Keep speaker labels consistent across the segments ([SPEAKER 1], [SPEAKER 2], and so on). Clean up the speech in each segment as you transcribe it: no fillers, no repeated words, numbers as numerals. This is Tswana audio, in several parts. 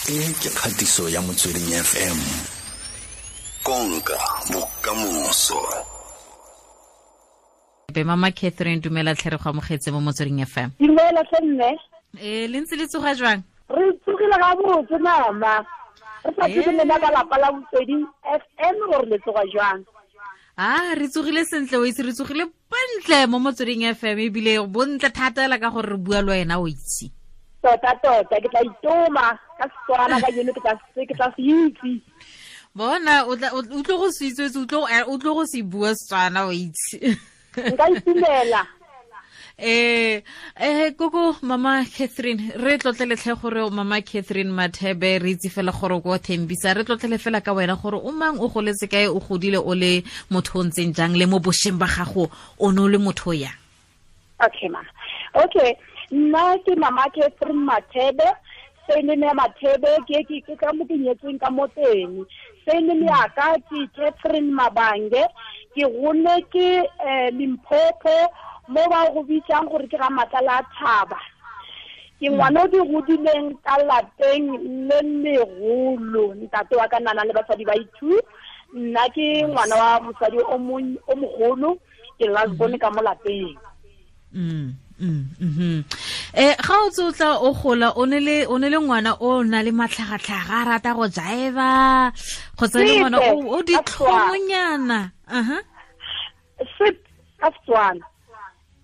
[SPEAKER 1] E ke kgatiso ya Motsweding FM. Konka bokamoso.
[SPEAKER 2] Be Mama Catherine, dumela tlhe, re go amogetse mo Motsweding FM.
[SPEAKER 3] Dumela tlhe mme.
[SPEAKER 2] Ee, le ntse le tsoga jwang?
[SPEAKER 3] Re tsogile ga botse mama. Re sa tsebe lena ka lapa la Motsweding FM gore le tsoga jwang.
[SPEAKER 2] A re tsogile sentle, o itse re tsogile bontle mo Motsweding FM, ebile bontle thata la ka gore re bua le wena, o itse.
[SPEAKER 3] Tota tota ke tla itoma ka Setswana ka jeno, ke tla se itse.
[SPEAKER 2] Bona, o tlo go se itse, o tlo go se bua Setswana, o itse.
[SPEAKER 3] Nka itumela.
[SPEAKER 2] Koko Mama Catherine, re tlotleletlhe gore Mama Catherine Mathebe, re itse fela gore ko Thembisa. Re tlotlele fela ka wena gore o mang, o goletse kae, o godile o le motho o ntseng jang, le mo bošweng ba gago o ne o le motho o yang?
[SPEAKER 3] Okay mama. Okay, nna ke Mama Catherine Mathebe. Surname ya Mathebe ke ka mo ke nyetsweng ka mo teng. Surname ya ka ke Catherine Mabange. Ke gone ke Limpopo, mo ba go bitsang gore ke ga Matlala a Thaba. Ke ngwana o di godileng ka lapeng le legolo. Ntate wa ka nana le basadi ba i-two. Nna ke ngwana wa mosadi o mogolo, ke last born ka mo lapeng.
[SPEAKER 2] Ga o tse o tla o gola, o ne le ngwana o na le matlhagatlhaga, a rata go jaiva, kgotsa le ngwana o ditlhomonyana? Aha.
[SPEAKER 3] Sep ka Setswana.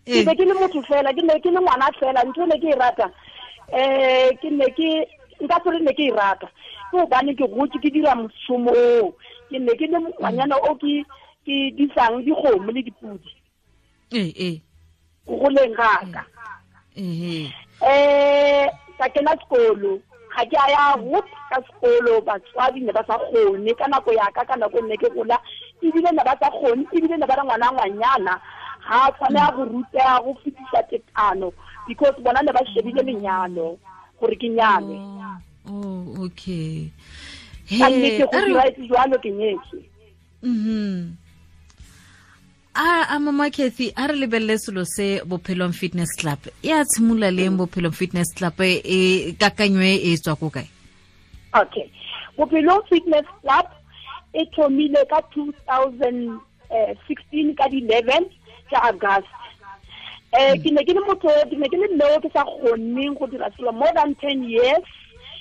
[SPEAKER 3] Ke be ke le motho fela, ke ne ke le ngwana fela. Ntho ne ke e rata, ke ne ke nka tsore ne ke e rata ke gobane ke gotse ke dira mošomo oo. Ke ne ke le ngwanyana o ke disang dikgomo le dipudi
[SPEAKER 2] ee ee
[SPEAKER 3] go goleng gaka. Ka kena sekolo, ga ke a ya rut ka sekolo. Batswadi ne ba sa kgone ka nako yaka, ka nako nne ke gola, ebile ne ba sa kgone, ebile ne ba re ngwana ngwanyana ga a tshwanela go rutega go fetisa tekano, because bona ne ba shebile lenyalo gore ke nyalwe.
[SPEAKER 2] Oh, okay.
[SPEAKER 3] Ka nnete go diraetse jwalo, ke nyetswe.
[SPEAKER 2] A Mama Cathy, a re lebelele selo se Bophelong Fitness Club. E a tshimolola leng Bophelong Fitness Club? E kakanyo e tswa ko kae?
[SPEAKER 3] Okay, Bophelong Fitness Club e thomile ka 2016 ka di-11 tsa August. Ke ne ke le motho, ke ne ke le mme o ke sa kgoneng go dira selo more than 10 years.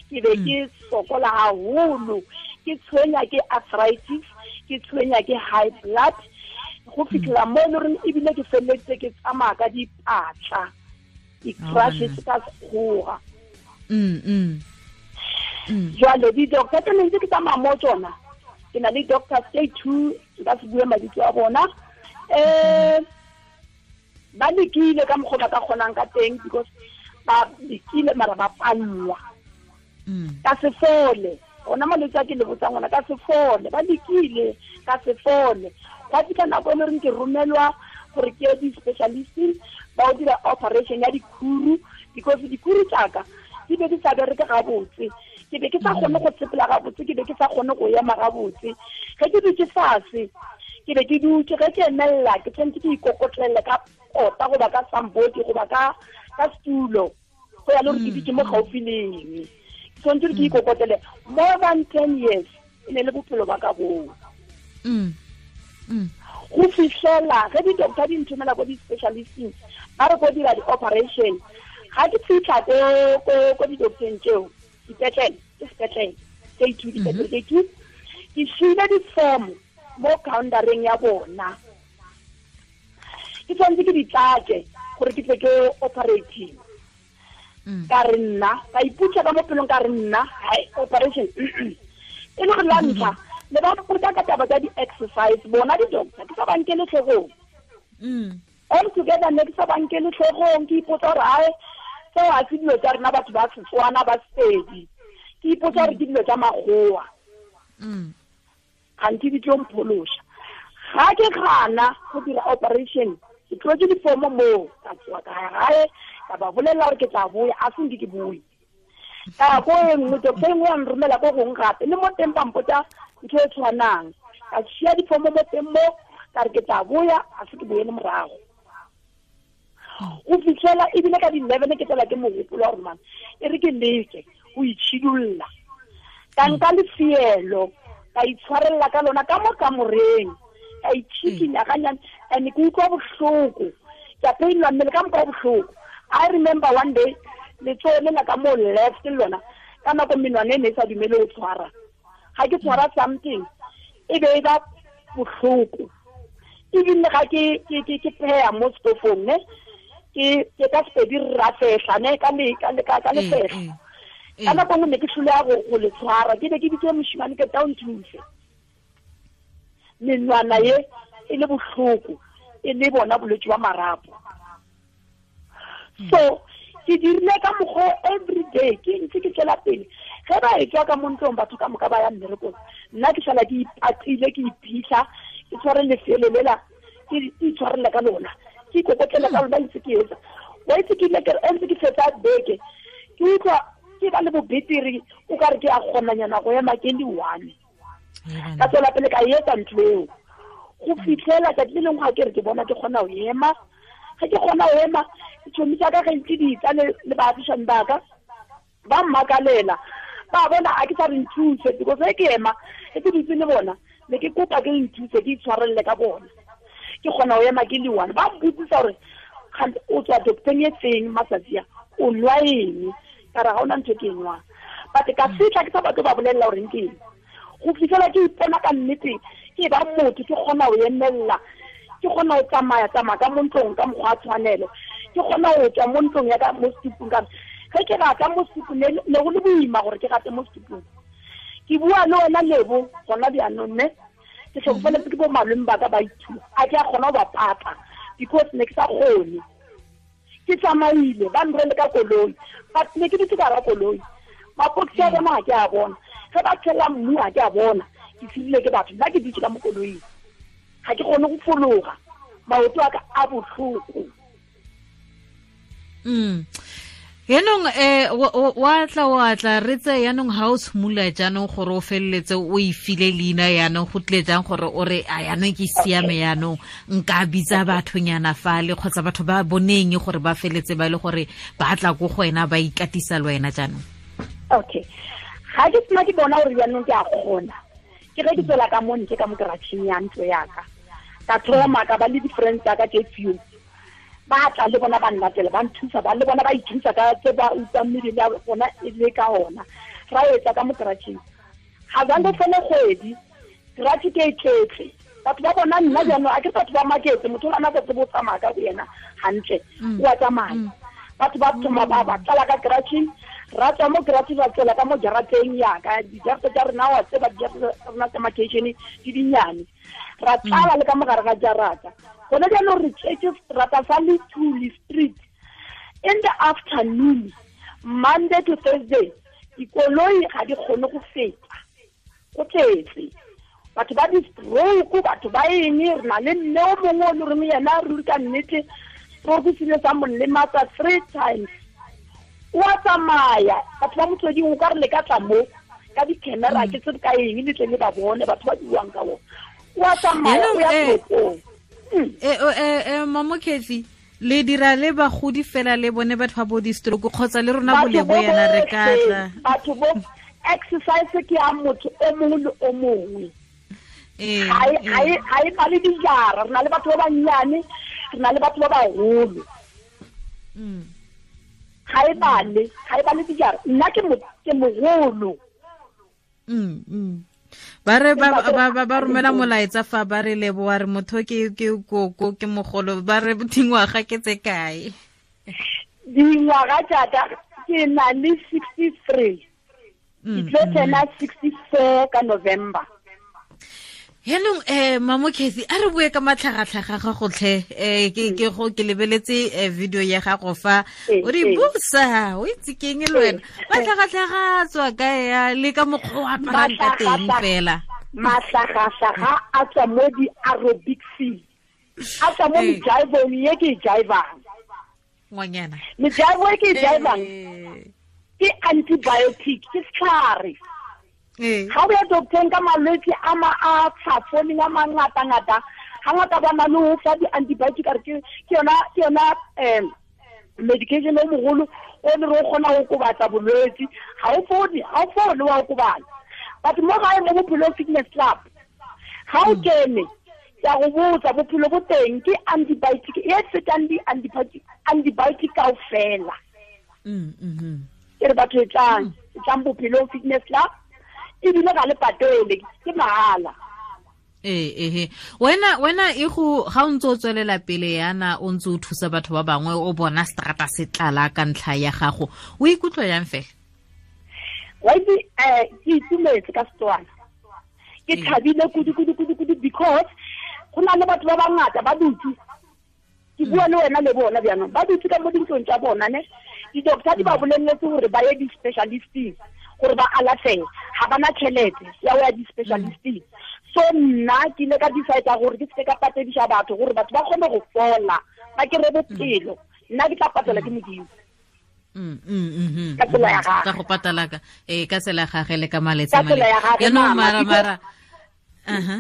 [SPEAKER 3] Ke be ke sokola haholo, ke tshwenya ke arthritis, ke tshwenya ke high blood, go fitlhela mo e le goreng ebile ke feleletse ke tsamaya ka dipatla, di-crutches ka sekgowa. Jwale di-doctor tse ne ntse ke tsamaya mo tsona, ke na le doctor tse two, nka se bue mabitso a bona. Ba lekile ka mokgwa ba ka kgonang ka teng, because ba lekile mara ba pallwa. Ka se fole ona malwetse a ke le botsang ona, ka se fole. Ba lekile, ka se fole. Gwa fitlha nako e le goreng ke romelwa gore ke ye di-specialisting, ba o dira operation ya dikhuru, because dikhuru tsaka di be di sa bereke gabotse. Ke be ke sa kgone go sepela gabotse, ke be ke sa kgone go ema gabotse. Ge ke dutse fase, ke be ke dutse, ge ke emelela ke tshwanetse ke ikokotlele ka kota goba ka sambodi goba ka setulo, go ya le gore ke dutse mo gaufi leng. Ke tshwanetse gore ke ikokotlele. More than 10 years e ne le bophelo ba ka boo. Go fitlhela ge di-doctor di nthomela ko di-specialisting, ba re ko dira di-operation. Ga ke fitlha ko di-docteng tseo, dipetlele ke sepetlele tse two, dipetlele tse two, ke siile di-form mo countereng ya bona, ke tshwanetse ke di tlatse gore ke tle ke operating. Ka re nna ka iputsa ka mo pelong, ka re nna hai, operation e le gore la ntlha le ba mpotsa ka taba tsa di-exercise bona di-doctor, ke sa ba nkele tlhogong. All together ne ke sa ba nkele tlhogong. Ke ipotsa gore ae, seo ga se dilo tsa rena batho ba Setswana ba Sepedi. Ke ipotsa gore ke dilo tsa makgowa, gantsi di tlo mphološa. Ga ke gana go dira operation, ke tlotse difomo moo, ka tsoa ka ya gae, ka ba bolelela gore ke tla boya. A senke ke boe ka ya ko e nngwe, doctor e nngwe ya nromela ko gongwe gape, le mo teng ba mpotsa ntho e tshwanang. Ka sia difomo mo teng mo, ka re ke tla boya. A se ke boele morago go fitlhela ebile ka di-11 ke tsela ke mogopolo wa gore man, e re ke leke go itšhidulla. Ka nka lefielo ka itshwarella ka lona ka mo kamoreng, ka itšhikinya ganyane, and ke utlwa bohloko, ke a painwa mmele ka moka bohloko. I remember one day letsogo le la ka mo left le lona ka nako menwana e ne e sa dumele go tshwara, ga ke tshwara something e be e ba bohloko. Ebile ga ke pheya mo stofong ne ke ka sepedi rafehla ne ka lefehla, ka nako nngwe ne ke tlholeya go le tshwara, ke be ke bitse moshimane ke tla o nthuse. Menwana ye e le bohloko, e le bona bolwetse ba marapo. So ke dirile ka mokgwa every day, ke ntse ke tswela pele. Ge ba etswa ka mo ntlong batho ka moka ba ya mmerekong, nna ke sala ke ipatile, ke iphitlha, ke tshware lefelo lela, ke itshwarela ka lona, ke ikokotlela ka lona, ntse ke etsa. Wa itse ke ile ke ntse ke fetsa beke, ke utlwa ke ba le bobeteri, o ka re ke a kgonanyana go ema ke le one. Ka tswela pele ka etsa ntho eo go fitlhela tsatsi le lengwe ga ke re ke bona ke kgona go ema. Ge ke kgona go ema, ditšhomi tsa ka ge ntse di tla le baagišani ba ka ba mmakalela, ba bona a ke sa re nthuse, because ge ke ema ge ke dutse le bona ne ke kopa ke nthuse, ke itshwarelele ka bona, ke kgona go ema ke le one. Ba mpotsisa gore o tswa docteng e feng matsatsi a, o nwa eng? Ka re ga ona ntho ke e nwang, but ka fitlha ke sa batle ba bolelela gore ke eng. Go fitlhela ke ipona ka nnete ke ba motho, ke kgona go emelela, ke kgona go tsamaya tsamaya ka mo ntlong ka mokgwa wa tshwanelo, ke kgona go tswa mo ntlong ya ka mo setupung. Ka ge ke rata mo setupung ne go le boima gore ke rate mo setupung. Ke bua le wena Lebo gona bjaanong ne ke tlhokofaletse ke bo malome ba ka ba ithuta, a ke a kgona go ba pata because ne ke sa kgone. Ke tsamaile ba nrele ka koloi, but ne ke dutse ka hara koloi, mapokisi a bona ga ke a bona, ge ba tshela mmu ga ke a bona, ke sirile ke batho, nna ke dutse ka mo koloing, ga ke kgone go fologa, maoto a ka a bohloko.
[SPEAKER 2] Yaanong wa tla re tse yaanong ga o tshimolola jaanong gore o feleletse o e file leina, yaanong go tlile jang gore o re a yaanong ke siame, yaanong nka bitsa bathonyana fale kgotsa batho ba boneng gore ba feletse ba e le gore ba tla ko go wena ba ikatisa le wena jaanong?
[SPEAKER 3] Okay, ga ke sena ke bona gore jaanong ke a kgona, ke ge ke tswela ka mo ntle ka mo keratšheng ya ntlo yaka, ka thoma ka ba le di-friends tsaka tse few, ba tla le bona ba nlatela, ba nthusa, ba le bona ba ithusa ka tse ba utlwang mebele ya bona e le ka ona. Ra etsa ka mo keratšheng, ga zange fele kgwedi keratšhe ke e tletse, batho ba bona nna jaanong a ke batho ba maketse, motho o ana sa tsebe o tsamaya ka bo yena hantle, o a tsamaya. Batho ba thoma ba tlala ka keratšheng, ra tswa mo keratšheng ra tswela ka mo jarateng yaka, dijarata tsa rena wa tseba dijarata tsa rena tsa makeishene di dinnyane, ra tlala le ka mogare ga jarata. Gone jaanong re tletse seterata sa Lethuli Street in the afternoon, Monday to Thursday, dikoloi ga di kgone go feta, go tletse batho ba di-stroke, batho ba eng. Re na le mme o mongwe o le reng yena ruri ka nnete stroke se ile sa mo lematsa 3 times, o a tsamaya. Batho ba Motsweding o ka re le ka tla mo ka di-camera ke tsebe ka eng le tle le ba bone batho ba buang ka bona, o a tsamaya o ya toropong.
[SPEAKER 2] Mamo Cathy, le dira le bagodi fela le bone batho ba bo di-stroke kgotsa le rona bolebo yana re ka tla?
[SPEAKER 3] Batho bo exercise ke ya motho o mongwe le o mongwe, ga e bale dijara. Re na le batho ba bannyane, re na le batho ba bagolo, ga e bale dijara. Nna ke mogolo.
[SPEAKER 2] Ba re ba romela molaetsa fa ba re leboa re motho ke koko ke mogolo, ba re dingwaga ke tse kae?
[SPEAKER 3] Dingwaga jaaka ke na le 63, ke tlo tsena 64 ka November.
[SPEAKER 2] Yaanong Mamo Cathy, a re bue ka matlhagatlhaga ga gotlhe. Ke lebeletse video ya gago fa o re busa, o itse keng le wena, matlhagatlhaga a tswa kae ya le ka mokgwa o aparang ka teng fela?
[SPEAKER 3] Matlhagatlhaga a tswa mo di-aerobicseng, a tswa mo mejaivong ye ke e jaivang.
[SPEAKER 2] Ngwanyana,
[SPEAKER 3] mejaivo e ke e jaivang ke antibiotic, ke setlhare. Ga o ya docteng ka malwetse a a tshafo-ling a mangata-ngata, ga ngata ba na le ho fa di-antibiotic, a re ke yona medication o mogolo o le re o kgona go kobatsa bolwetse, ga o fole wa okobala. But mo gae mo Bophelong Fitness Club ga o kene, ke a go botsa, bophelo bo teng ke antibiotic e fetang di-antibiotic kaofela. Ke re batho e tlang Bophelong Fitness Club, ebile ga le patele, ke mahala.
[SPEAKER 2] Ee, wena e go ga o ntse o tswelela pele yana, o ntse o thusa batho ba bangwe, o bona strata se tlala ka ntlha ya gago, o ikutlwa yang fela?
[SPEAKER 3] Wa itse, ke itumetse ka Setswana, ke thabile kudu kudu kudu kudu, because go na le batho ba bangata ba dutse, ke bua le wena le bona bjaanong, ba dutse ka mo dintlong tsa bona ne, di-doctor di ba boleletse gore ba ye di-specialisting gore ba alafege, ga bana tšhelete ya go ya di-specialisting. So nna ke ile ka decide gore ke seke ka patedisa batho gore batho ba kgone go fola, ba kry-e bophelo. Nna ke tla patela ke Modimo. Ka tsela ya gagwe.
[SPEAKER 2] Ka go patala ka ka tsela ya gagwe le ka maletsa.
[SPEAKER 3] Ka tsela ya gagwe,
[SPEAKER 2] Yaanong
[SPEAKER 3] mama,
[SPEAKER 2] mara aha,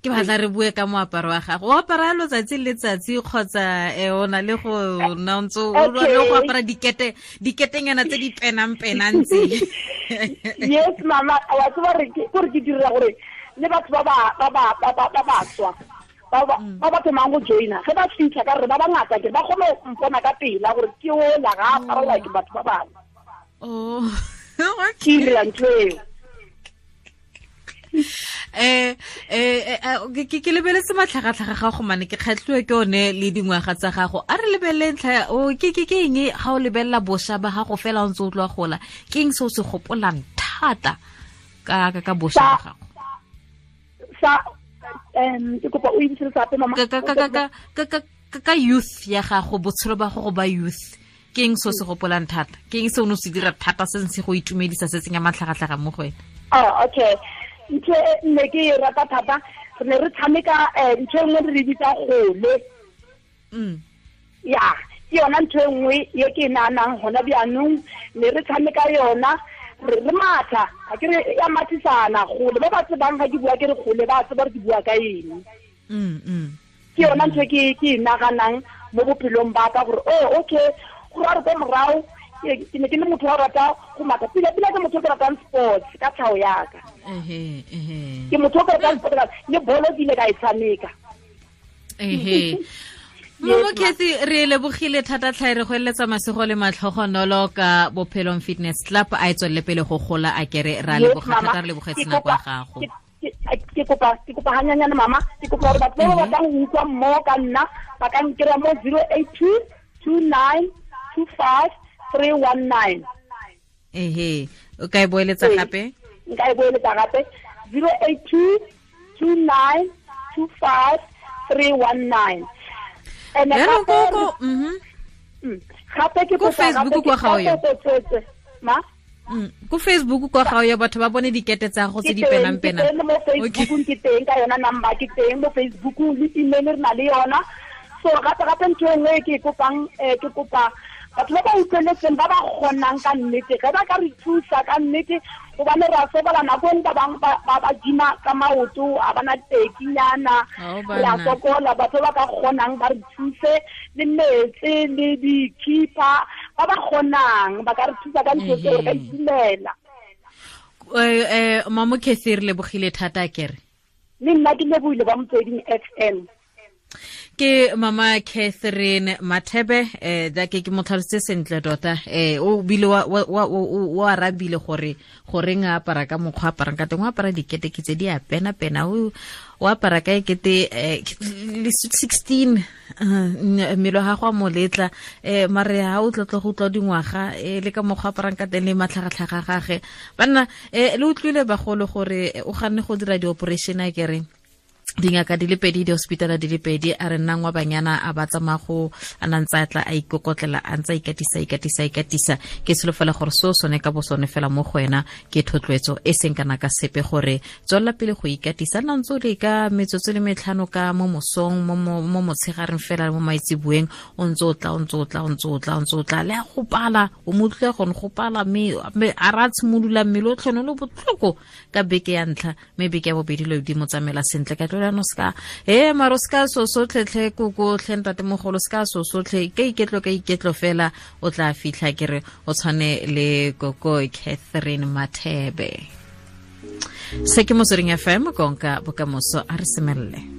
[SPEAKER 2] ke batla re bue ka moaparo wa gago. O apara letsatsi le letsatsi kgotsa o na le go nna o ntse o
[SPEAKER 3] Okay.
[SPEAKER 2] le go apara diketenyana tse di penang-penang tse?
[SPEAKER 3] Yes mama, wa tseba re ke gore ke dira gore le batho ba ba tswa ba ba thomang go joina, ge ba fitlha ka re ba bangata ke ba kgone go mpona ka pela gore ke ola ga apara like batho ba bangwe.
[SPEAKER 2] Oh,
[SPEAKER 3] Ke dira ntho eo.
[SPEAKER 2] Ke lebeletse matlhagatlhaga ga go mane, ke kgatlhiwe ke one le dingwaga tsa gago. A re lebelele ntlha, o, ke eng ga o lebelela bošwa ba gago fela o ntse o tloa gola, ke eng se o se gopolang thata ka bošwa ba gago?
[SPEAKER 3] Ke kopa o ibisele gape, mama.
[SPEAKER 2] Ka youth ya gago, botshelo ba gago ba youth, ke eng se o se gopolang thata? Ke eng se o ne o se dira thata se se go itumedisa, se tsenya matlhagatlhaga mo go wena?
[SPEAKER 3] Oh, okay. Ntho e ne ke e rata thata, re ne re tshameka, ntho e nngwe re bitsa gole. Ya, ke yona ntho e nngwe e ke e nahanang hona bjaanong, ne re tshameka yona, re matha, ga ke re ya mathisana gole, ba ba tsebang ga ke bua ke re gole, ba tseba gore ke bua ka eng. Ke yona ntho e ke e naganang mo bophelong ba ka gore, oh, okay, go ra re ko morago, ke ne ke le motho wa rata go matha. Pila pila ke motho o ke ratang sports ka tlhago ya ka. Ke motho o ke ratang sports, le bolo ke ile ka e tshameka.
[SPEAKER 2] Momo Cathy, re lebogile thata tlhae, re go eletsa masego le matlhogonolo ka Bophelong Fitness Club, a e tswelele pele go gola, a kere ra
[SPEAKER 3] Yes,
[SPEAKER 2] leboga
[SPEAKER 3] mama.
[SPEAKER 2] thata, re lebogetse nako ya gago.
[SPEAKER 3] Ke kopa hanyanyane, mama, ke kopa gore batho ba ba batlang go utlwa mmogo ka nna ba ka nkry-a mo 082 29 25 319.
[SPEAKER 2] Ehe, o ka e boeletsa
[SPEAKER 3] Ee.
[SPEAKER 2] gape?
[SPEAKER 3] Nka e boeletsa gape, 082 29 25 319. And
[SPEAKER 2] Jaanong
[SPEAKER 3] gape
[SPEAKER 2] ko,
[SPEAKER 3] gape ke
[SPEAKER 2] Ko
[SPEAKER 3] kopa
[SPEAKER 2] Facebook
[SPEAKER 3] gape
[SPEAKER 2] kwa
[SPEAKER 3] ke
[SPEAKER 2] ga o ya?
[SPEAKER 3] kopa tswetswe, ma?
[SPEAKER 2] Ko Facebook kwa ga o ya, batho ba bone dikete tsa gago tse di
[SPEAKER 3] Ke teng,
[SPEAKER 2] penang-penang.
[SPEAKER 3] ke teng mo Facebook, ke teng ka yona number, ke teng mo Facebook le email re na le yona. So gape gape ntho e nngwe e ke e kopang, ke kopa batho ba ba utlweletseng, ba ba kgonang ka nnete, ge ba ka re thusa ka nnete, gobane re a sokola nako e nngwe, ba bangwe ba gima ka maoto, a bana tekinyana,
[SPEAKER 2] Ao,
[SPEAKER 3] re a
[SPEAKER 2] banna.
[SPEAKER 3] sokola. Batho ba ka kgonang ba re thuse le metsi le di-keeper, ba ba kgonang ba ka re thusa ka ntho tseo, re ka itumela.
[SPEAKER 2] Mamo Cathy, re lebogile thata, kere.
[SPEAKER 3] Le nna ke lebohile ba Motsweding FM.
[SPEAKER 2] Ke Mama Catherine Mathebe, da ke mo tlhalositse sentle tota, o bile wa arabile gore goreng a apara ka mokgwa a aparang ka teng, o apara dikete ke tse di a pena-pena, o apara ka ekete, le sweet 16, mmele wa gago a mo letla, mare ha o tlotlo go utlwa dingwaga, le ka mokgwa a aparang ka teng le matlhagatlhaga a gage. Banna, le utlwile bagolo gore o ganne go dira di-operation, a kereng dingaka di le pedi, di-hospitala di le pedi, a re nnang wa banyana a ba tsamaya go a na ntse a tla a ikokotlela, a ntse a ikatisa, ikatisa, ikatisa. Ke solofela gore seo sone ka bo sone fela mo go wena ke thotloetso e seng kana ka sepe, gore tswelela pele go ikatisa, nna ntse o leka metsotso le metlhano ka mo mosong, mo motshegareng fela, mo maitseboeng, o ntse o tla, o ntse o tla, o ntse o tla, o ntse o tla, le a go pala, o mo utlwile gone go pala, mme a ra tshimolola mmele o tlhone o le botlhoko ka beke ya ntlha, mme beke ya bobedi lo di mo tsamaela sentle. Ka tlola no ska, maro ska so sotlhe tlhe koko tlhe ntatemogolo, ska so sotlhe, ka iketlo, ka iketlo fela o tla fitlha, ke re o tshwane le koko Catherine Mathebe. Se ke Motsweding FM, konka bokamoso. A re semelele.